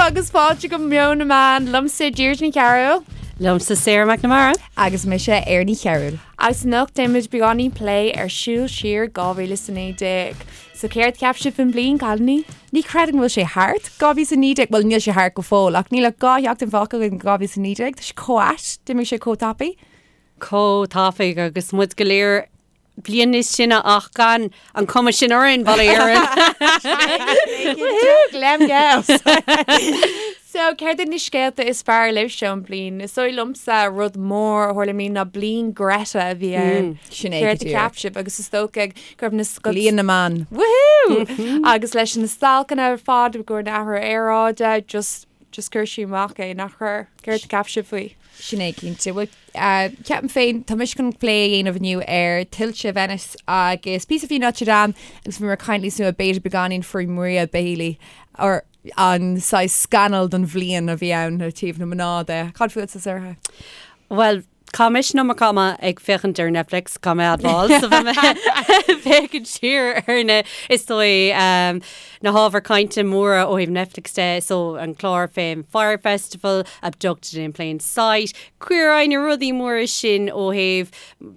agus fáilte go Meon na Meán liomsa Deirdre Ní Chearúil. Liomsa Sarah McNamara. Agus mise Erin Ní Chearúil. Agus anocht déanfaimid beagáinín plé ar siúl siar 2019. So céard cheap sibh faoin bliain, cailíní? Ní chreidim go bhfuil sé thart, 2019, bhuel níl sé thart go fóill ach níl ach 2 sheachtain fágtha againn 2019, tá sé chomh ait, d'imigh sé chomh tapaidh. Chomh tapaidh agus muid go léir bliain níos sine ach gan an cuma sin orainn, bail ó Dhia orainn. Woohoo, Glam Girls! So, céard iad na scéalta is fearr libhse ón bliain? Is dóigh liomsa rud mór a tharla i mbliana ná bliain Greta a bhí ann. Sin é go Céard a díreach. cheap sibh? Agus is dócha go raibh na scoil... Bliain na mban. Woohoo! Agus leis na stailceanna ar fad i gcomhair an athrú aeráide, just, just chuir sí amach é, nach chuir? Céard a cheap sibh faoi? Sin é cinnte. Bhuel, ceapaim féin, tá mise chun plé a dhéanamh inniu ar tuilte Venice agus píosa faoi Notre Dame agus bhí mé ag caint níos luaithe b'fhéidir beagáinín faoi Maria Bailey or an saghas scannal don bhliain a bhí ann ó taobh na mná de. Cad fútsa, Sarah? Bhuel, chaith mise an iomarca ama ag féachaint ar Netflix, caithfidh mé a admháil, so bhí mé ag féachaint siar ar na, is dóigh, na hábhair cainte móra ó thaobh Netflix de, so an clár fén Fyre Festival, Abducted in Plain Sight, Queer Eye, na rudaí móra sin ó thaobh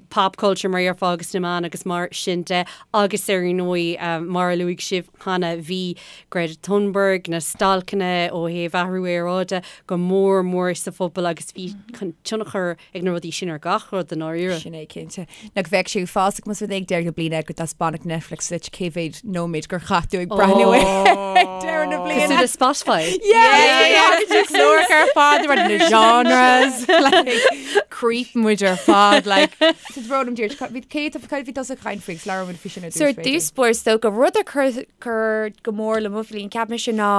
pop culture mar a déarfá agus na meáin agus mar sin de agus ar ndóigh mar a luaigh sibh cheana bhí Greta Thunberg, na stailceanna ó thaobh athrú aeráide go mór mór sa phobal agus bhí tionchar ag na rudaí sin ar gach rud i ndáiríre. Sin é cinnte. Nach bheadh sé uafásach más rud é ag deireadh na bliana go dtaispeánfadh Netflix duit cé mhéad nóiméad gur chaith tú ag breathnú air ag deireadh na bliana. Cosúil le Spotify. Yeah! Cláracha ar fad, mar na genres, like, creep muid ar fad, like. So bród liom Deirdre, bhí cé tá bhí tusa ag caint faoi agus labhair muid faoi sin ar So dtús ar b'fhéidir. dtús báire is dócha rud a chuir chuir go mór le mo bhliain, cheap mise ná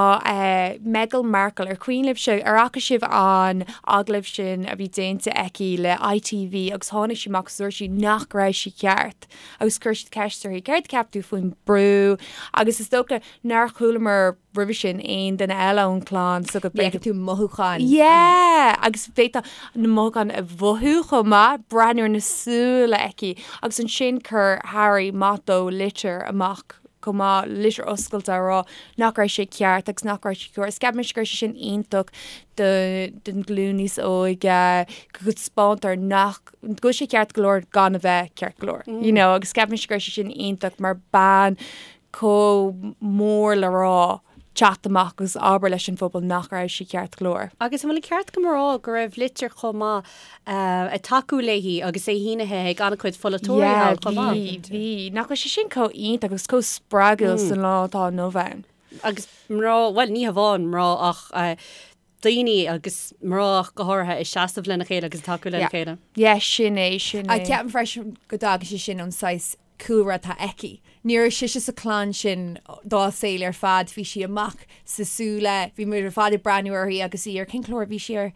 Meghan Markle, ar cuimhin libhse, ar fhaca sibh an agallamh sin a bhí déanta aici le ITV agus tháinig sí amach agus dúirt sí nach raibh sí ceart agus chuir siad ceist uirthi, céard a cheap tú faoin brú agus is dócha nár chualamar roimhe sin aon duine eile ón chlann so go Ní fheiceann tú mothúcháin. Yeah! Agus bhféadfá na mothúcháin a mhothú chomh maith, breathnú ar na súile aici agus ansin chuir Harry maith dó litir amach chomh maith, litir oscailte a rá nach raibh sé ceart agus nach raibh sé cóir. Is ceapaimse go raibh sé sin iontach do don ghlúin níos óige, go dtaispeántar nach, go bhfuil sé ceart go leor gan a bheith ceart go leor, you know, agus ceapaimse go raibh sé sin iontach mar bean chomh mór le rá teacht amach agus abair leis an phobal nach raibh sí ceart go leor. Agus an bhfuil an ceart agam a rá go raibh litir chomh maith ag tacú léi agus é shínithe ag an-chuid pholaiteoirí thall chomh maith? Bhí, bhí. Nach bhfuil sé sin chomh iontach agus chomh spreagúil san lá atá inniu ann? Agus mná, bhuel ní hamháin mná ach daoine agus mná ach go háirithe ag seasamh lena chéile agus ag tacú lena chéile. Yeah, sin é, sin é. Ceapaim freisin go dtagann sé sin ón saghas cúlra atá aici. Ní raibh sise sa chlann sin dá saol ar fad, bhí sí amach sna súile, bhí muid ar fad ag breathnú uirthi agus í ar, cén clár a bhí sí ar?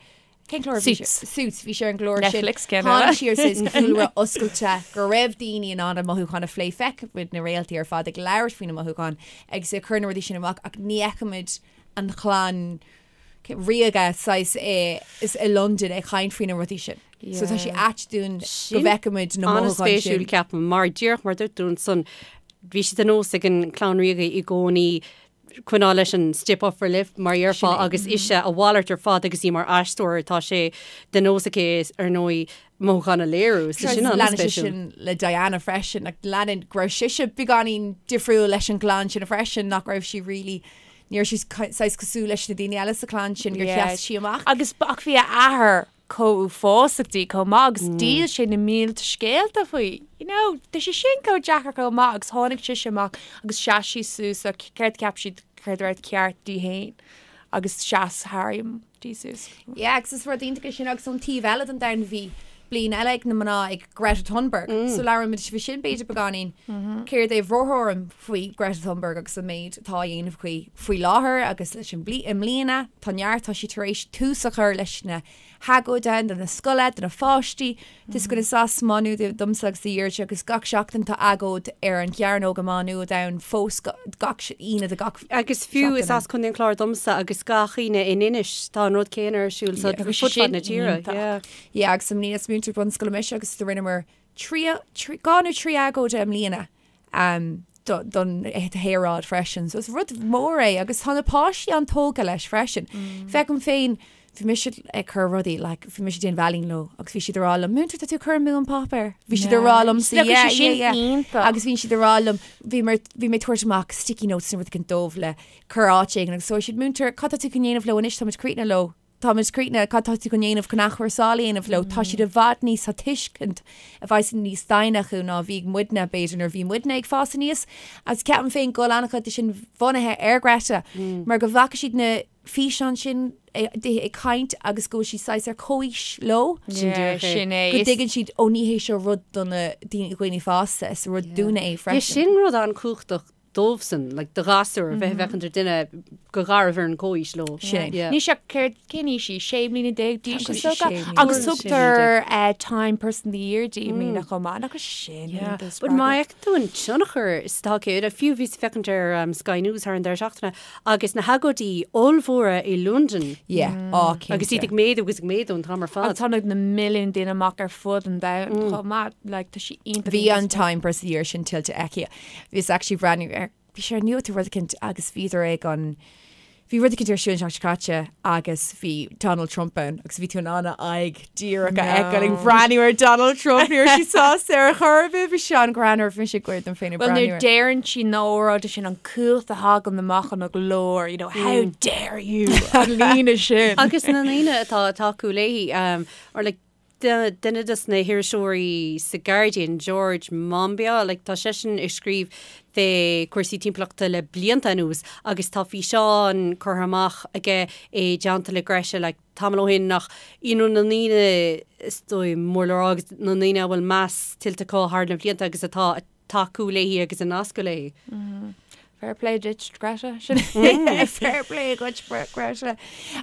Cén clár a bhí sí ar? Suits, bhí sí ar an gclár sin. Netflix, ceann eile. Tháinig sí ó saghas cúlra oscailte go raibh daoine in ann a mothúcháin a phlé, feicimid na réaltaí ar fad ag labhairt faoina mothúcháin agus ag cur na rudaí sin amach ach ní fheicimid an chlann ríoga saghas i Londain ag caint faoi na rudaí sin. So tá sé ait dúinn go bhfeicimid na mothúcháin sin. An-spéisiúil ceapaim, mar díreach mar dúirt tú ansan, bhí sé de nós ag an chlann ríoga i gcónaí coinneáil leis an stiff upper lip mar a déarfá agus ise a mhalairt ar fad agus í mar aisteoir tá sé de nós aici ar ndóigh mothúcháin a léiriú. So sin Leanann sé an-spéisiúil. sin le Diana freisin, like leanann go raibh sise beagáinín difriúil leis an gclann sin freisin, nach raibh sí really Ní raibh sí saghas cosúil leis na daoine eile sa chlann sin gur sheas sí amach. Agus ach bhí a athair chomh uafásach di chomh maith agus dhíol sé na mílte scéalta faoi. You know, tá sé sin chomh deacair chomh maith agus tháinig sise amach agus sheas sí suas le céard a cheap siad céard a raibh ceart di féin agus sheas Harry di suas. Yeah, agus is rud iontach é sin agus ón taobh eile den domhan bhí bliain eile ag na mná ag Greta Thunberg. So labhraímid faoi sin b'fhéidir beagáinín. Céard é bhur dtuairim faoi Greta Thunberg agus an méid atá á dhéanamh aici faoi láthair agus leis an bhli i mbliana tá neart, tá sí tar éis tús a chur leis na hagóide do na scoile, do na pháistí. Tá scoil is as Má Nuad domsa agus do Dheirdre agus gach seachtain tá agóid ar an gCearnóg i Má Nuad ann fós gach Aoine de gach Agus fiú is seachtain. as Contae an Chláir domsa agus gach Aoine in Inis tá an rud céanna ar siúl so Agus fud fad sin na tíre. iontach. Yeah. Yeah, agus i mbliana is múinteoir bunscoile mise agus do rinneamar 3, 2 nó 3 agóid i mbliana. Um. don aeráid freisin. So is rud mór é agus tá na páistí an-tógtha leis freisin. Feicim féin, bhí mise ag cur rudaí, like, bhí mise ag déanamh ealaín leo agus bhí siad ag rá liom, Múinteoir, tá tú ag cur amú an páipéar. Bhí siad ag rá liom, yeah, yeah, sin yeah. iontach. Agus bhí siad ag rá liom, bhí mé bhí mé ag tabhairt amach sticky notes nó rud éigin dóibh le cur áit éigin agus dúirt siad, Múinteoir, cad tá tú chun dhéanamh leo anois, táimid críochnaithe leo. Táimid críochnaithe, cad tá tú chun dhéanamh chun athchúrsáil a dhéanamh leo? Tá siad i bhfad níos, tá tuiscint i bhfad níos doimhne acu ná a bhí ag muidne, b'fhéidir, nuair a bhí muidne ag fás aníos. Agus ceapaim féin go bhfuil an-chuid de sin bunaithe ar Greta, mar go bhfaca siad na físeáin sin di ag caint agus go bhfuil sí saghas ar comhaois leo. Sin díreach é. Sin é. Go dtuigeann siad, ó ní hé seo rud do na daoine fásta, is rud dúinne é freisin. Sin rud an-chumhachtach dóibhsan, like, do ghasúr, a bheith ag féachaint ar duine go garbh ar an comhaois leo. Sin. Yeah. Ní sé céard cén aois í, 16 mbliana d'aois Tá is sé dócha. sé mbliana. Agus tugtar eh, Time Person of the Year di i mbliana chomh maith. Nach sin Yeah. iontach But má spreagúil. fheiceann tú an tionchar is atá aici, like, fiú bhíos ag féachaint ar um, Sky News thar an deireadh seachtaine agus na hagóidí ollmhóra i Londain Yeah. Á, cinnte. agus iad ag méadú agus ag méadú an t-am ar fad. Agus tháinig na milliúin daoine amach ar fud an domhain chomh maith. Like, tá sí iontach Bhí iontach an Time Person of the Year sin tuillte aici. Bhíos actually breathnú ar, bhí sé ar nuacht nó rud eicínt agus bhíodar ag an, bhí rud eicínt ar siúl an tseachtain seo caite agus bhí Donald Trump ann agus bhí tú in ann a aghaidh díreach a fheiceáil ag breathnú ar Donald Trump, ní raibh sí sásta ar chor ar bith, bhí sé an-ghreannmhar, bhí mise ag gáire dom féin ag Well, breathnú nuair air. deireann sí na óráide sin an cumhacht a thagann amach ina glór, you know, how dare you, an líne sin. Agus na ndaoine atá ag tacú léi, um, or like, Duine de na hiriseoirí sa Guardian, George Monbiot, like, tá seisean ag scríobh fé chúrsaí timpeallachta le blianta anuas agus tá físeán curtha amach aige i dteannta le Greta like, tamall ó shin nach you know, na ndaoine is dóigh mór le rá agus na ndaoine a bhfuil meas tuillte acu thar na blianta agus atá ag tacú léi agus ag nascadh léi. Fair play duit, Greta. Sin Fair play duit, Greta.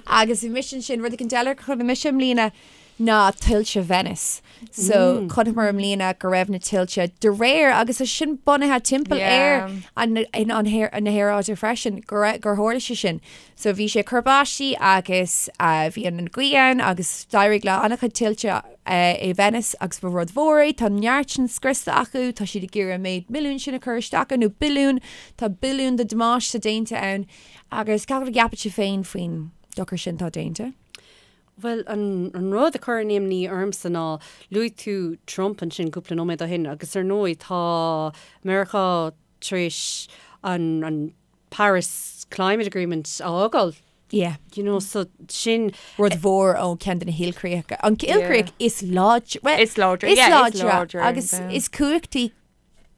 Agus bhí mise ansin, rud éicint eile a chonaic mise i mbliana ná tuilte Venice. So chonaiceamar i mbliana go raibh na tuilte de réir agus é sin bunaithe timpeall ar an an na haeráide freisin go raibh gur tharla sé sin. So bhí sé ag cur báistí agus bhí an ghaoth ann agus d'éirigh le an-chuid tuilte i Venice agus ba rud mhór é. Tá neart sin scriosta acu, tá siad ag iarraidh an méid milliún sin a chur isteach ann, nó billiún, tá billiún de damáiste déanta ann agus cad a cheapann sibh féin faoin dochar sin atá déanta? Bhuel, an rud a chuireann imní ormsa ná, luaigh tú Trump ansin cúpla nóiméad ó shin agus ar ndóigh tá Meiriceá tar éis an Paris Climate Agreement a fhágáil. Yeah. You know, so sin. Rud mhór ó ceann de na hilchríocha. An ilchríoch is láidre. Well, Is láidre, is yeah, is láidre. láidre, Agus yeah. is cumhachtaí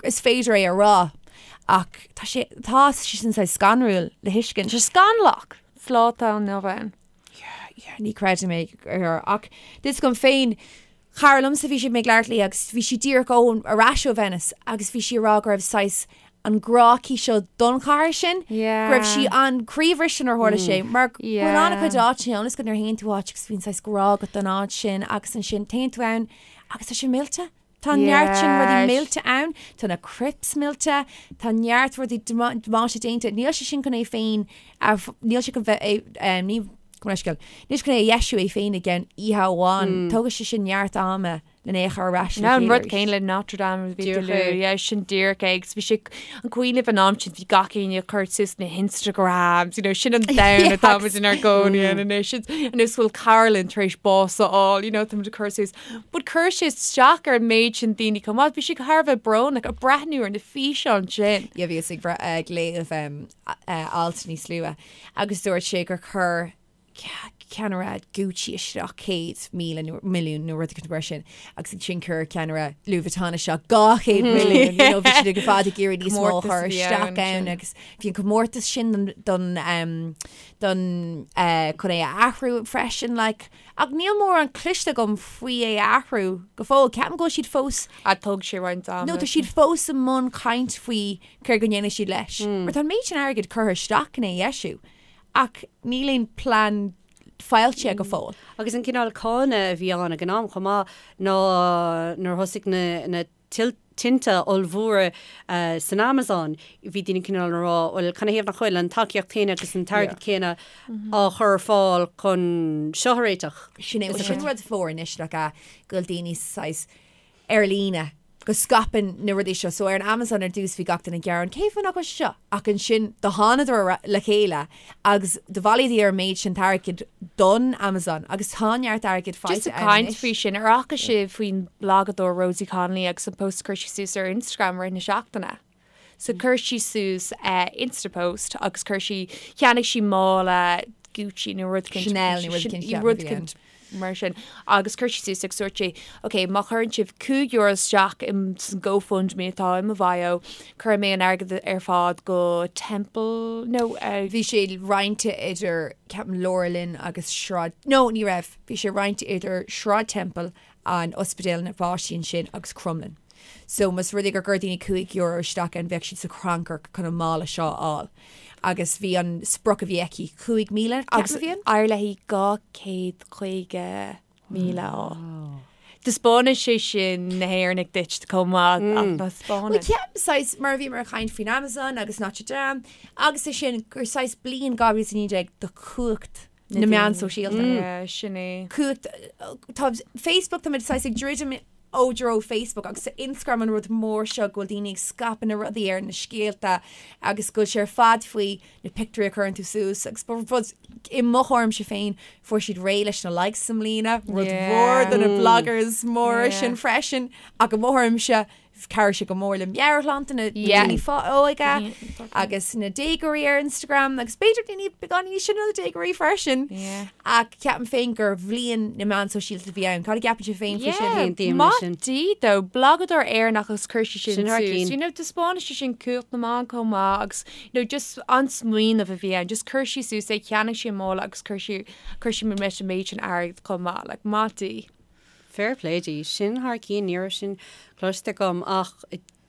is féidir é a rá. Ach tá sé, tá sé sin saghas scanrúil le thuiscint. Tá sé scannalach sa lá atá inniu ann. Yeah, yeah, ní chreidim é ar ach is dom féin Cara liomsa bhí sé mé ag labhairt léi agus bhí sí díreach ó ar ais ó Venice agus bhí sí ag rá go raibh saghas an grá aici seo don chathair sin, go raibh sí an-chroíbhriste nuair a tharla sé mar go bhfuil an-chuid áiteanna ann is go nuair a théann tú áit agus bíonn saghas grá agat don áit sin agus ansin téann tú ann agus tá sé millte. Tá neart sin rudaí millte ann, tá na crypts millte, tá neart rudaí damáiste déanta, níl sé sin chun é féin, níl sé chun bheith, ní, Gabh mo leithscéal. Níl sé chun é a dheisiú é féin i gceann oíche amháin. Tógfaidh sé sin neart ama lena é a chur ar ais le Ná an chéile rud arís. céanna le Notre Dame a bhí Díreach tú luaigh. é. Yeah, sin díreach é. Agus bhí sé an cuimhin libh an am sin bhí gach éinne ag cur suas na hInstagrams, you know, sin an domhan atá muid inár gcónaí ann anois. Anois bhfuil cara linn tar éis bás a fháil, you know, tá muid ag cur suas. But chuir sé isteach ar an méid sin daoine chomh maith. Bhí sé thar a bheith brónach ag breathnú ar na físeáin sin. Yeah, bhíos ag ag léamh alt níos luaithe agus dúirt sé gur chuir ceannaire Gucci isteach 100,000 nó milliún nó rud éicint mar sin agus ansin chuir ceannaire Louis Vuitton isteach 200 milliún, you know, bhí siad ar fad ag iarraidh níos mó a chur isteach ann agus bhí an comórtas sin don don chun é a athrú freisin like ach níl mórán cloiste agam faoi é a athrú go fóill. Ceapaim go bhfuil siad fós A thóg sé roinnt ama. No tá siad fós i mbun caint faoi céard go ndéanfaidh siad leis. Mar tá an méid sin airgid curtha isteach in é a dheisiú ach níl aon plean foilsithe go fóill. Agus an cineál cáineadh a bhí ann ag an am chomh maith ná nuair a thosaigh na na tinte ollmhóra san Amazon, bhí daoine cineál ag rá, bhuel, canathaobh nach bhfuil an tacaíocht chéanna agus an t-airgead céanna á chur ar fáil chun seo a réiteach? Sin é, sin rud mhór anois like, go bhfuil daoine saghas ar líne. go scaipeann na rudaí seo. So ar an Amazon ar dtús bhí gach duine ag gearán cén fáth nach bhfuil sé seo? Ach ansin do thánadar le chéile agus do bhailíodar an méid sin airgid don Amazon agus tá neart airgid faighte Just ag caint faoi sin, ar fhaca sibh faoin blagadóir Rosie Connolly agus an post a chuir sí suas ar Instagram i rith na seachtaine? So chuir sí suas Insta post agus chuir sí, cheannaigh sí mála Gucci nó rud éicint. Chanel nó rud éicint, rud éicint mar sin. Agus chuir sí suas agus dúirt sí, ok, má chuireann sibh €5 isteach in san GoFundMe atá i mo bhio, cuirfidh mé an airgead ar fad go Temple, no, Bhí sé roinnte idir, ceapaim, LauraLynn agus Sráid, no, ní raibh, bhí sé roinnte idir Sráid Temple, an ospidéal na bpáistí ansin agus Crumlin. So más rud é gur chuir daoine €5 isteach ann bheadh siad sa chrannchur chun an mála seo a fháil. Agus bhí an sprioc a bhí aici 5,000 Agus ceapaim a bhí ann? d'éirigh léi 250,000 a fháil. Taispeánann sé sin na hÉireannaigh duit chomh maith ach ná spáineann. Bhuel ceapaim saghas mar a bhíomar ag caint faoin Amazon agus Notre Dame agus é sin gur saghas bliain 2019 do chumhacht na meán sóisialta. Sin é. Cumhacht tá Facebook tá muid saghas ag druidim ó dtreo Facebook agus Instagram an rud mór seo go bhfuil daoine ag scaipeadh na rudaí ar na scéalta agus go bhfuil sé ar fad faoi na pictiúirí a chuireann tú suas agus ba rud i mo thuairimse féin fuair siad réidh leis na likes i mbliana, rud mhór do na bloggers móra sin freisin ach i mo thuairimse Chabhraigh sé go mór le meabhairshláinte na daoine óga agus na déagóirí ar Instagram agus b'fhéidir daoine beagán níos sine ná na déagóirí freisin. Ach ceapaim féin gur bhliain na meán sóisialta a bhí ann. Cad a gceapann sibh féin faoi sin? Aontaím leis sin. Maith di though, blagadóir Éireannach agus chuir sí sin suas. You know, taispeánann sé sin cumhacht na meán chomh maith agus you know, just an smaoineamh a bhí ann. Just chuir sí suas é, cheannaigh sí an mála agus chuir sí chuir sí leis an méid sin airgid chomh maith. Like, maith di. Fair play di. Sin thar cionn, ní raibh sin cloiste agam ach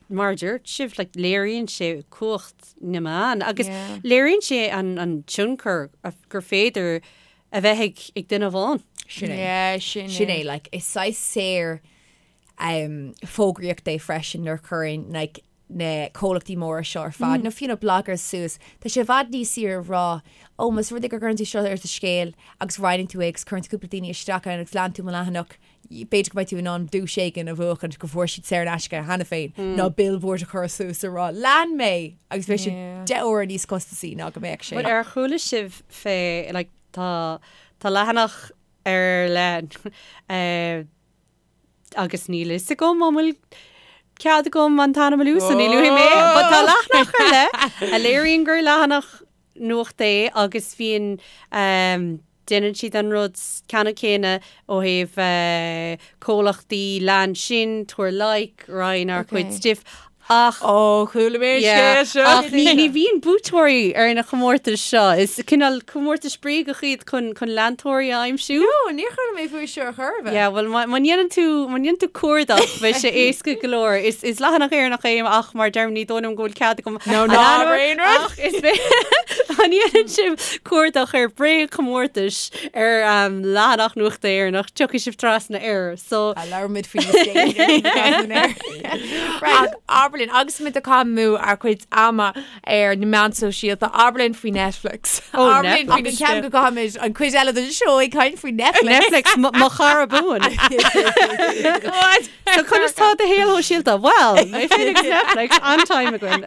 mar a dúirt sibh, like, léiríonn sé cumhacht na meán agus léiríonn sé an, an tionchar gur féidir a bheith ag, ag duine amháin. Sin é. Yeah, sin é. Sin é, like, is saghas saor um, fógraíocht é freisin nuair a chuireann like, na comhlachtaí móra seo ar fad, nó fiú na bloggers suas, tá sé i bhfad níos saoire a rá, ó, más rud é go gcuireann tú seo ar do scéal agus roinneann tú é agus cuireann tú cúpla daoine isteach ann agus leanann tú mo leathanach, b'fhéidir go mbeidh tú in ann duais éigin a bhuachaint go bhfuair siad saor in aisce cheana féin, ná billboard a chur suas a rá, lean mé! Agus beidh sé 10 uaire níos costasaí ná go mbeadh sé. Bhuel, ar chuala sibh fé, like, tá, tá leathanach ar leith, eh, agus níl fhios agam an bhfuil cead agam an t-ainm a lua so ní luafaidh mé é, but tá leathanach ar leith a léiríonn gur leathanach nuachta é agus bíonn ehm déanann siad an rud ceannann céanna ó thaobh eh comhlachtaí lean sinn, tabhair like, roinn ár gcuid stuif Ach. Ó, chuala mé an scéal seo. Ach ní bhíonn buaiteoirí ar na comórtais seo. Is cineál comórtais bréagach iad chun chun leantóirí a aimsiú. No, níor chuala mé faoi seo ar chor ar bith. Yeah, bhuel má dhéanann tú, má dhéanann tú cuardach, beidh sé éasca go leor. Is is leathanach Éireannach é ach mar deirim ní dóigh liom go bhfuil cead agam No, ná aon rud. Ach is má dhéanann sibh cuardach ar bréagchomórtais ar leathanach nuachta Éireannach, tiocfaidh sibh trasna air. So. Labhróimid faoi níos déanaí. Ach abair linn, agus muid ag caitheamh amú ár gcuid ama ar na meáin sóisialta, abair linn faoi Netflix. Ó, Abair linn faoi Agus ceapaim go gcaithfimid an cuid eile den seó ag caint faoi Netflix. Netflix, mo chara buan. What? So conas tá do shaol shóisialta? Well, mé féin agus Netflix, an-time againn.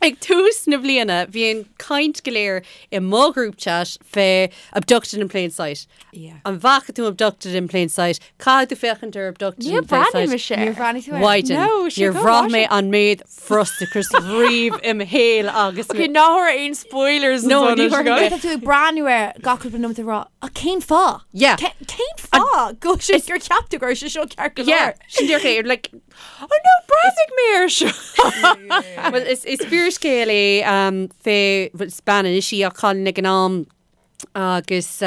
Ag tús na bliana, bhí an caint go léir i mo group chat fé Abducted in Plain Sight. Yeah. An bhfaca tú Abducted in Plain Sight? Caithfidh tú féachaint ar Abducted Níor in Plain bhreathnaigh Sight. mise air. Níor bhreathnaigh tú air? Mhaighdean, No, sé níor go bhraith mé bhfaca. an méid frustrachais riamh im shaol agus Ok, ná tabhair aon spoilers No, ansan ní anois, thabharfaidh guys. mé. Tá tú ag breathnú air gach cúpla nóiméad ag rá, ach cén fáth? Yeah. Ce- Cén fáth go bhfuil sé gur cheap tú go raibh sé seo ceart go Yeah, leor? sin díreach é, like, Oh no, breathnaigh mé air seo! Well, is, is fíorscéal é um, fé, well, is bean anois í ach cailín ag an am agus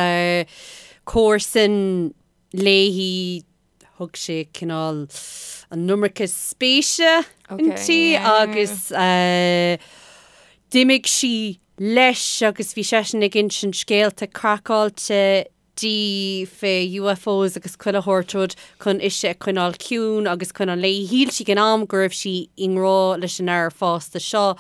comharsan léi, thug sé cineál an iomarca spéise inti agus d'imigh sí leis agus bhí seisean ag insint scéalta craiceáilte di fé UFOs agus chuile shórt rud chun ise a choinneáil ciúin agus coinneáil léi. Shíl sí ag an am go raibh sí i ngrá leis an fhear fásta seo.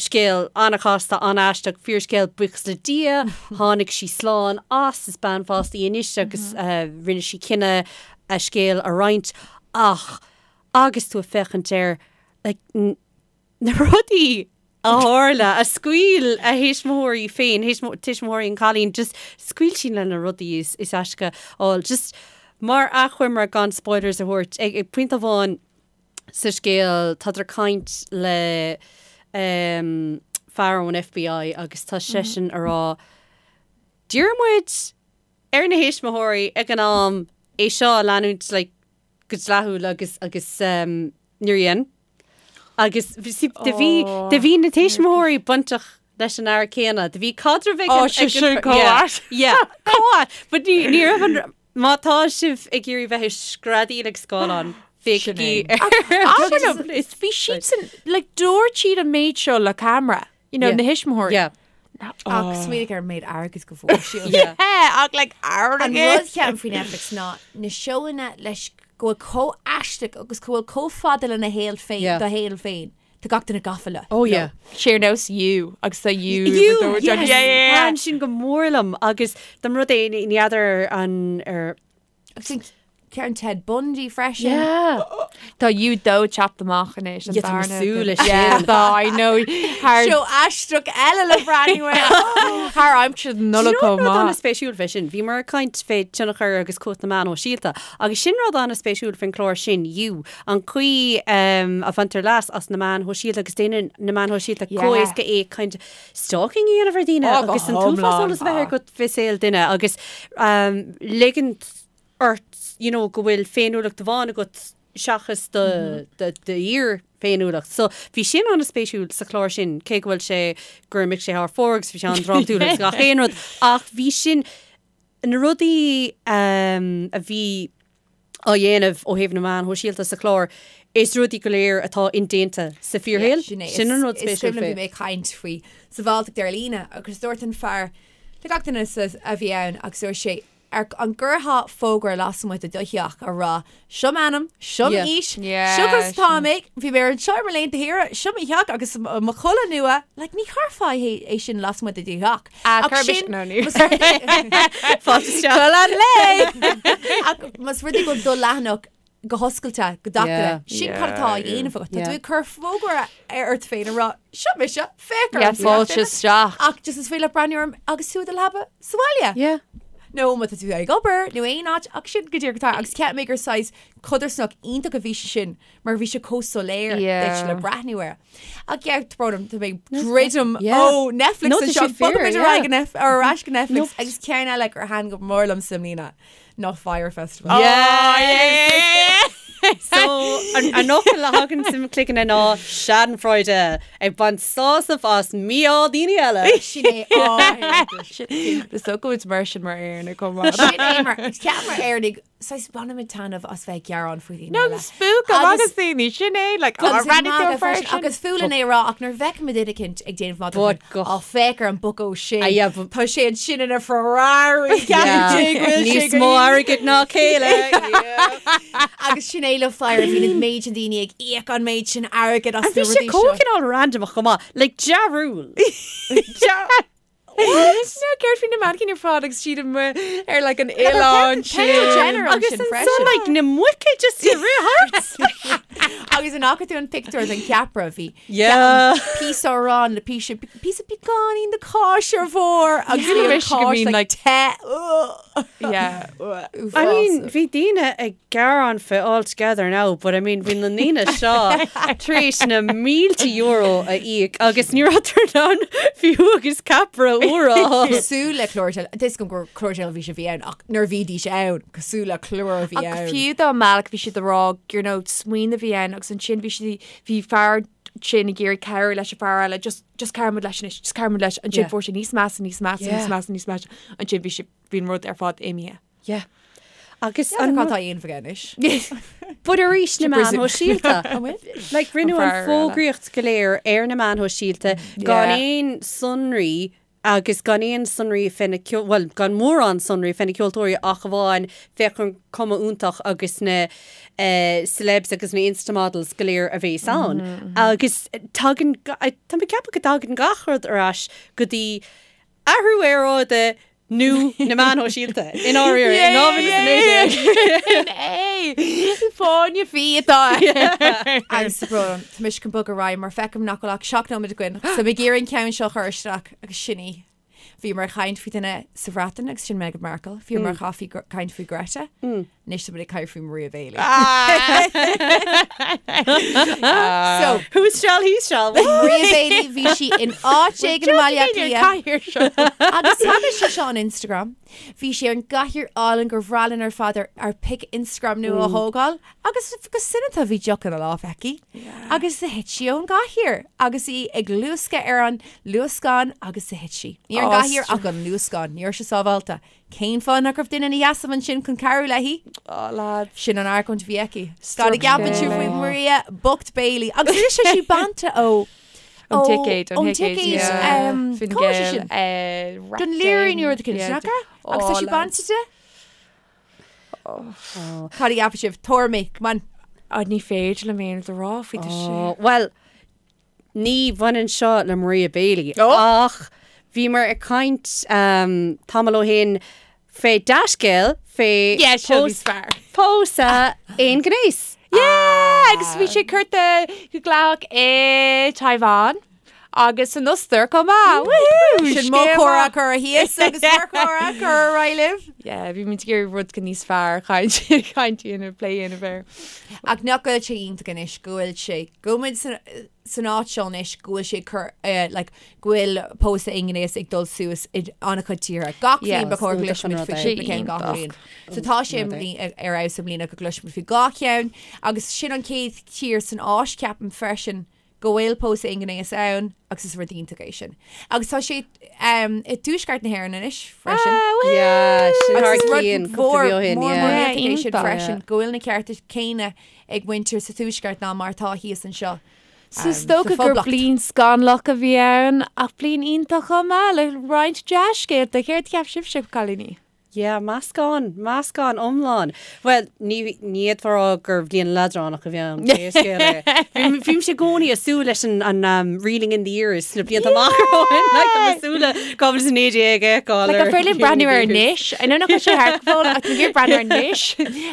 Scéal an-chasta, an-aisteach, fíorscéal, buíochas le Dia, tháinig sí slán as, is bean fásta í anois agus rinne sí cinneadh a scéal a roinnt. Ach agus tú ag féachaint air, like, na rudaí a tharla, a scaoil a thuismitheoirí féin, tuismitheoirí an chailín, just scaoil sí le na rudaí is is aisce fháil. Just mar achoimre gan spoilers a thabhairt, ag ag pointe amháin sa scéal tádar ag caint le um, fear ón FBI agus tá seisean a rá d'iarr muid ar na thuismitheoirí ag an am é seo a leanúint like, go dleathúil agus agus um, níor dhein. Agus bhí sí- do bhí do bhí na tuismitheoirí bainteach leis an fhear céanna. Do bhí caidreamh ag Ó, an- sé ag an- sin chomh Yeah, ait. yeah, chomh ait. But ní ní raibh an má tá sibh ag iarraidh bheith ag screadaíl ag scáileán, féachaigí ar Abair liom, bhí siadsan, like, dúirt siad an méid seo le camera, you know, Yeah. na thuismitheoirí. Yeah. Ach smaoinigh ar an méid airgid go bhfuair siad. Yeah. Ach like An airgead. rud cheapaim faoi Netflix ná na seóanna leis go bhfuil chomh aisteach agus go bhfuil chomh fada lena shaol féin, Yeah. do shaol féin. Tá gach duine gafa leo. Oh yeah. Sé ar nós You agus tá You. You, yes. Yeah, yeah, yeah. Thaitin sin go mór liom agus dá mba rud é ní fheadar an ar Agus an ceann Ted Bundy freisin. Yeah. Tá You 2 teacht amach anois. an Yeah, tá mé darna súil leis Yeah, sin. tá, I know. Thar Seó aisteach eile le breathnú air. thar aimsir na Nollag chomh Rud maith. an-spéisiúil fé sin, bhíomar ag caint fé tionchar agus cumhacht na meán shóisialta, agus sin rud an-spéisiúil faoin chlár sin, You, an chaoi um, a bhaintear leas as na meáin shóisialta agus déanann na meáin shóisialta Yeah. chomh éasca é kind of stalking a dhéanamh ar daoine Oh, go agus an t-uafás hiomlán. eolas a bheith agat fé saol duine agus um, ligint ort you know, go bhfuil féiniúlacht amháin agat seachas do do do fhíor-fhéiniúlacht. So bhí sin an-spéisiúil sa chlár sin, cé go bhfuil sé gur imigh sé thar fóir agus bhí sé an-drámatúil agus gach aon rud, ach bhí sin na rudaí um, a bhí á dhéanamh ó thaobh na meán shóisialta sa chlár, is rudaí go léir atá indéanta sa fíorshaol. Sin é. Sin an rud Is spéisiúil cuimhin liom fé. bhí mé ag caint faoi sabháilteacht ar líne agus dúirt an fear le gach duine sa- a bhí ann agus dúirt sé Ar an gcuirfeá fógra lasmuigh de do theach a rá, Seo m'ainm, seo Yeah. m'aois, Yeah, seo conas sin. atá mé, bhí mé ar anseo ar mo laethanta saoire, seo mo theach agus mo chulaith nua, like ní chuirfeá é é sin lasmuigh de do theach. Ah, Ach cuir sin- no, ní. más rud é- Fáilte isteach. Culaith lae! Ach más rud é go bhfuil do leathanach go hoscailte, go gach Yeah. duine, sin cad atá á dhéanamh agat. Tá Yeah. tú ag cur fógra ar ort féin a rá, seo mise, féach orm. Yeah, fáilte isteach. Ach just is féidir leat breathnú orm agus tú i do leaba sa bhaile. Yeah. nó má tá tú ag obair nó aon áit ach sin go díreach atá agus cheap mé gur saghas codarsnacht iontach a bhí sé sin mar bhí sé chomh soiléir Yeah. duit le breathnú air. Ach yeah, tá brón orm, tá mé ag druidim Yeah. ó Netflix No, tá anseo, sé fíor, bogaimid ar yeah. aghaidh go Nef- ar ais go Netflix Nope. agus ceann eile gur thaitin go mór liom sa mbliana ná Fyre Festival. Yeah. Oh, yeah. So an an fhocal a thagann sa chloigeann ná Schadenfreude ag baint sásamh as mí-ádh daoine eile. Sin é á Is dócha go bhfuil mar sin mar Éireannaigh chomh maith. Sin é mar ceap mar Éireannaigh saghas bainimid taitneamh as bheith ag gearán faoi dhaoine No, eile. spook Agus- agus daoine sin é like Agus oh, ag magadh freisin, agus fuath linn é a rá ach nuair a bhfeicimid duine eicínt ag déanamh magadh But faoin, go- "Á, féach ar an bucko sin. Ah, yeah, but- Tá sé ansin ina Ferrari. Yeah. Ceapann sé go bhfuil sé Níos go mó hiontach. airgid ná chéile. Agus sin é le Fyre bhí an méid sin daoine ag íoc an méid sin airgid as Bhí na sé rudaí seo. chomh cineál random chomh maith, like dearúil. No, céard faoi na mannequin ar fad agus siad amuigh ar like an oileán Kendall sin. Jenner Agus ansin ansan freisin. like na muice just i rith thart. Agus an fhaca tú an pictiúr den cheapaire bhí Yeah. píosa aráin le píosa píosa beagáinín de cáis ar bharr agus Yeah. bhí an Wish go cáis mbíonn, like like, te. Yeah. I mean, bhí daoine ag gearán fé All Together Now, but I mean, bhí na ndaoine seo tar éis na mílte euro a íoc agus ní raibh in ann fiú agus ceapaire úr a fháil. Cosúil le clár teil- Tá a fhios agam gur clár teilifíse a bhí ann ach nuair a bhídís ann, cosúil le clár a bhí Ach ann. fiú dá mbealach bhí siad ag rá you know, smaoineamh a bhí ann agus ansin bhí siad bhí fear sin ag iarraidh cabhrú leis an fear eile just just cabhraigh leis anois, just cabhraigh leis ansin Yeah. fuair sé níos measa níos measa Yeah. níos measa níos measa ansin bhí sé bhí an rud ar fad imithe. Yeah. Agus An an cad tá á dhéanamh aige anois? But arís na meáin shóisialta. Like rinneadh An an fear eile. fógraíocht go léir ar na meáin shóisialta gan Yeah. aon sonraí agus gan aon sonraí fé na ceol- bhuel, gan mórán sonraí fé na ceoltóirí ach amháin féach an cuma iontach agus na eh, celebs agus na Instamodels go léir a bhéas ann. Agus tagann ga- tá mé ag ceapadh go dtagann gach rud ar ais go dtí athrú aeráide. Nó na meáin shóisialta, i ndáiríre, in 2019. É! Fáinne fí atá air. Agus tá brón orm, tá mise chun bogadh ar aghaidh mar feicim nach bhfuil ach 7 nóiméad againn, so mé ag iarraidh an ceann seo a chur isteach agus sin í. Bhíomar ag caint faoi duine sa Bhreatain agus sin Meghan Markle. Bhíomar ag caint faoi Greta. Anois tá muid ag caint faoi Maria Bailey. So, Who's shall he shall? Maria Bailey bhí sí in áit éigin i mBaile Átha Cliath. Agus tagann sé seo on Instagram. Bhí sí ar an gcathaoir álainn gur bhreá linn ar fad ár pic Instagram nua a thógáil agus go soineanta bhí deoch ina lámh aici agus do thit sí ón gcathaoir agus í ag luascadh ar an luascán agus do thit sí. Ní ar an gcathaoir ach an luascán, ní raibh sé sábháilte. Cén fáth nach raibh duine ina sheasamh ansin chun cabhrú léi? Oh lads. Sin an argóint a bhí aici. Cad a gceapann sibh faoi Maria bocht Bailey? Agus anois tá sí bainte ó Ón ticéad, ón ticéad, Fine cá bhfuil sé Gael, sin? Don Laoghaire nó rud éicint, nach ea? Agus tá sí bainte de? Cad a gceapann sibh? Tuairimí, come on. Oh, ní féidir liom aon rud a rá faoi tá sé. Bhuel, Ní bhaineann seo le Maria Bailey ach bhíomar ag caint tamall ó shin fé dea-scéal fé pósadh aonghnéis. Yeah! Agus bhí sé curtha go dleathach i Taiwan agus san Ostair chomh maith. Woohoo! Sin mo chomhrá curtha thíos agus bhur gcomhrá curtha ar aghaidh libh. Yeah, bhí muid ag iarraidh rud níos fearr caint caint a dhéanamh, plé a dhéanamh air. Ach nach bhfuil sé iontach anois go bhfuil sé, go bhfuil muid san áit seo anois go bhfuil sé ag cur, like, go bhfuil pósadh aonghnéis ag dul suas i an-chuid tíortha. Gach bliain ba chóir go gcloisfimid faoi cúpla ceann gach bliain. So tá sé ar fheabhas i mbliana go gcloisfimid faoi dhá cheann agus sin an chéad tír san Áis, ceapaim, freisin, go bhfuil pósadh aonghnéis ann agus is rud iontach é sin. Agus tá sé i dtuaisceart na hÉireann anois freisin. Yeah, sin thar Agus is rud cionn, cúpla mhór mí ó shin, mór yeah. mór Yeah, iontach é sin iontach. freisin, go bhfuil na cearta céanna ag muintir sa tuaisceart ná mar atá thíos anseo. So is sa dócha gur Phoblacht. bliain scannalach a bhí ann ach bliain iontach chomh maith le roinnt dea-scéalta. Céard a cheap sibhse, cailíní? Yeah, meascán, meascán iomlán. Bhuel, ní, ní fhéadfá a rá gur bhliain leadránach a bhí ann, pé scéal é. Bhí, bhímse i gcónaí ag súil leis an, an um, reeling in the years sna blianta amach romhainn, like, tá mé ag súil le 2019 a fheiceáil Like, ar an féidir linn breathnú air anois? I know nach bhfuil sé thart go fóill, ach tá mé ag iarraidh breathnú air anois.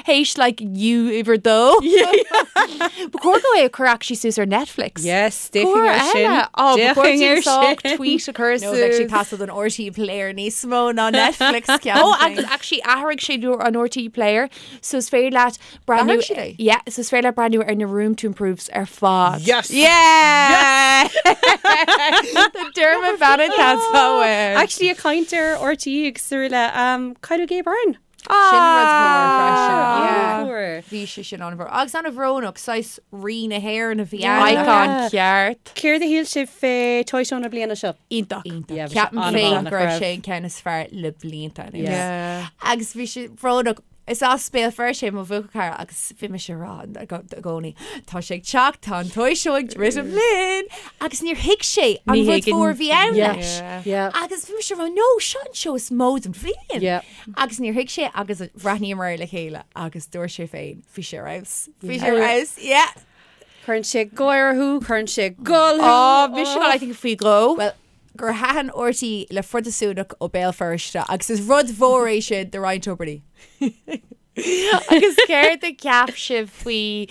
Théis, like, You uimhir dó. Ba chóir dó é a chur actually suas ar Netflix. Yes, D'fhéachfainn air sin. Ó, ba chóir D'fhéachfainn ar sách sin. tweet a chur Nó bheadh sé suas. teastáil don RTÉ Player níos mó ná Netflix ceann Ó, agus actually athraigh sé an RTÉ Player, so is féidir leat breathnú. D'athraigh siad é? Yeah, so is féidir leat breathnú ar na Room to Improves ar fad. Yes! Yeah! Tá Dermot Bannon tá Actually, ag caint ar RTÉ agus araile, um, cailleadh Gay Byrne. Sin rud mór freisin. Ah. An-mhór. Bhí sé sin an-mhór. Agus an-bhrónach, saghas rí na hÉireann a bhí ann. Icon ceart. Céard a shíl sibh fé Toy Show na bliana seo? Iontach. Iontach. Yeah, bhí sé Ceapaim an-mhaith, féin nach go raibh raibh? sé an ceann is fearr le blianta anuas. Yeah. Agus bhí sé brónach. Is as Béal Feirste é mo bhuachaill cara agus bhí mise ag rá i gcónaí, tá sé ag teacht, tá an Toy Show ag druidim linn! Agus níor thuig sé an Ní rud thuigeann- mhór a bhí ann Yeah. leis. Yeah. Agus bhí mise ag rá, no, seo an seó is mó den bhliain. Yeah. Agus níor thuig sé agus bhreathnaíomar air le chéile agus dúirt sé féin, bhí sé ar fheabhas. Bhí sé ar fheabhas, yeah. Cuireann sé gáire thú, cuireann sé gol thú. Ó, mise ag gabháil, I think, faoi dhó. Well, gur thaitin RTÉ le Phrotastúnach ó Béal Feirste agus is rud mhór é sin do Ryan Tubridy. Agus céard a cheap sibh faoi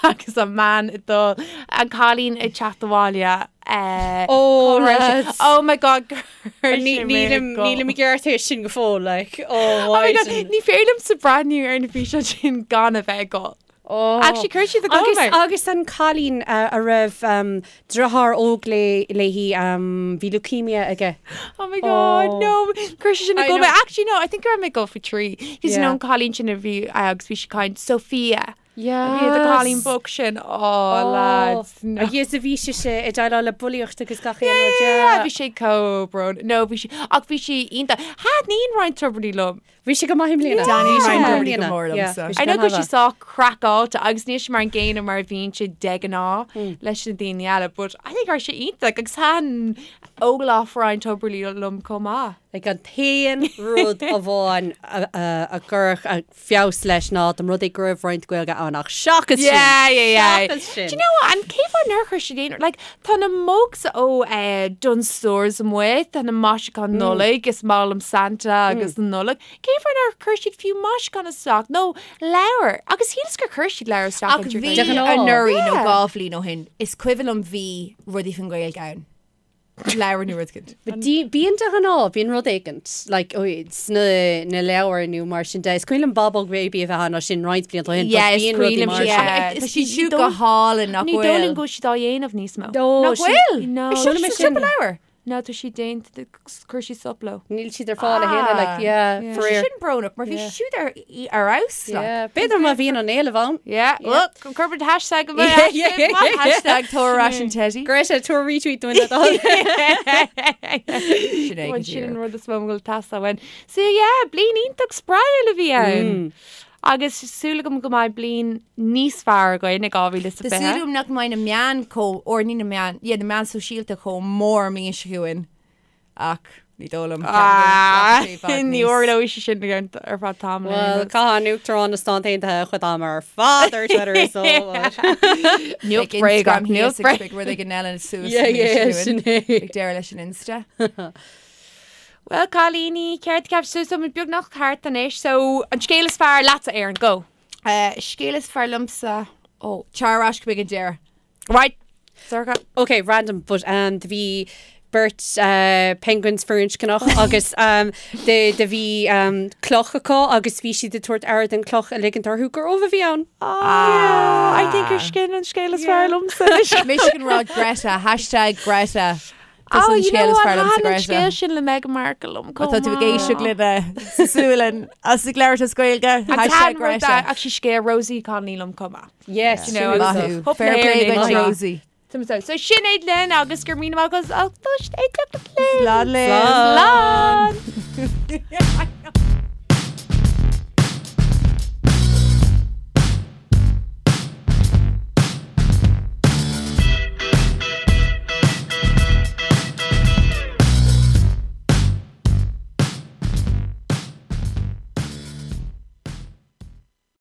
agus an man ag dul, an cailín ag teacht abhaile eh, Oh, cá raibh sé? lads. Oh my God, gur Ní- Nílim nílim i gceart é sin go fóill, like, oh, Oh my God, why? ní féidir liomsa breathnú ar na físeáin sin gan a bheith ag gol. Oh. Actually, chuir siad ag gol Agus, mé. agus an cailín uh, a raibh um, deartháir óg lé, léi um, bhí leukemia aige. Oh my God, Oh. no. Chuir sé sin I ag gol know. mé. Actually, no, I think go raibh mé ag gol faoi thrí. Cos Yeah. you know an cailín sin a bhí eh, agus bhí sí ag caint Sophia. Yes. Bhí an cailín bocht sin. Oh, lads. No. Agus a bhí sé sé ag déileáil le bulaíocht agus gach aon rud, Yeah, yeah. bhí sé chomh brónach. No, bhí sé, ach bhí sé iontach. Thaitníonn Ryan Tubridy liom. Bhí sé go maith i mbliana. Danny Bhí sé Ryan go maith i Tubridy go mbliana. mór Yeah, liomsa. bhí sé I know go go bhfuil maith. sé sách craiceáilte agus níl sé mar an gcéanna mar a bhíonn sé de ghnáth leis na daoine eile, but I think raibh sé iontach agus thaitin óglach Ryan Tubridy liom chomh maith. Like an t-aon rud amháin a chuirfeadh feabhas leis ná dá mba rud é go raibh roinnt Gaeilge ann ach seachas sin, Yeah, yeah, yeah. seachas sin. Do you know what? And cén fáth nár chuir siad aon like tá na mugs ó eh, Dunnes Stores amuigh, tá na maisiúcháin Nollag, is maith liom Santa agus na Nollag. Cén fáth nár chuir siad fiú maisiúchán isteach nó leabhar? Agus shíleas gur chuir siad leabhar isteach Ach an bhí De ghnáth. anuraidh nó Yeah. 2 bhliain ó shin, is cuimhin liom bhí rudaí faoin Ghaeilge ann. Leabhar nó rud éicint. But bíonn de ghnáth, bíonn rud éicint, like, ó, sna na leabhair nó mar sin de. Is cuimhin liom Bábóg Baby a bheith ann as sin roinnt blianta ó shin, but Yeah, is bíonn cuimhin rudaí liom mar sin. sin. Yeah. Tá siad siúd go hálainn nach Ní dóigh liom bhfuil. go bhfuil siad á dhéanamh níos mó. Ó, Nach sin- bhfuil? No. Is seo Chuala mé sa sin. siopa leabhar. No, tá siad déanta, chuir siad stop leo. Níl siad ar fáil a thuilleadh, like, yeah, Yeah. faraor. Sin brónach, mar bhí Yeah. siad ar ar fheabhas, like. Yeah. B'fhéidir má bhíonn an éileamh ann. Yeah, well, cuirfidh hashtag go Yeah, yeah, yeah, yeah. Hashtag tabhair ar ais an teddy. Greta, tabhair retweet dúinn le do thoil. Sin é go Sin an díreach. rud is mó a bhfuil teastáil uainn. So yeah, bliain iontach spraíúil a bhí ann. Agus súil agam go mbeidh bliain níos fearr againn i Tá súil 2020. agam nach mbeidh na meáin chomh, or ní na meáin, yeah, na meáin sóisialta chomh mór an mbliain seo chugainn. Ach ní dóigh liom. Ah, Ceapaim go rachaidh sé i bhfad ní níos- tharlóidh sé sin ar feadh tamaill. Well, caitheann an Uachtarán na Stát Aontaithe a chuid ama ar fad ar Twitter so. Níl Beidh bréagach, Instagram níl thíos agus beidh rud éigin eile suas Yeah, an mbliain yeah, seo sin chugainn. é. Beidh deireadh leis an Insta. Well, cailíní, céard a cheap sibh? So, muid beagnach thart anois, so an scéal is fearr leatsa, Erin, go! Scéal is fearr liomsa, ó, tar ar ais go mbeidh an deireadh. Right! Sorcha. Ok, random, but um, do bhí beirt uh, penguins firinscneach agus um, do, do bhí um, cloch acu agus bhí siad ag tabhairt aire don cloch a ligint orthu gur ubh a bhí ann. Ah, I think gur sin an scéal is fearr liomsa. Mise chun rá Greta, hashtag Greta. Tá Oh, an you know scéal is what? fearr liomsa Thaitin an Greta. scéal sin le Meghan Markle liom Má tá tú ag éisteacht linn sa Sualainn as ag labhairt as Gaeilge, hashtag Greta. Actually scéal Rosie Connolly liom chomh maith. Yes, You know, sin agus- é. Maith thú. Hope Fair na play hÉireann duit, é. Rosie. So sin é linn agus go raibh míle maith agaibh as ucht éisteacht linn. Slán linn. Slán!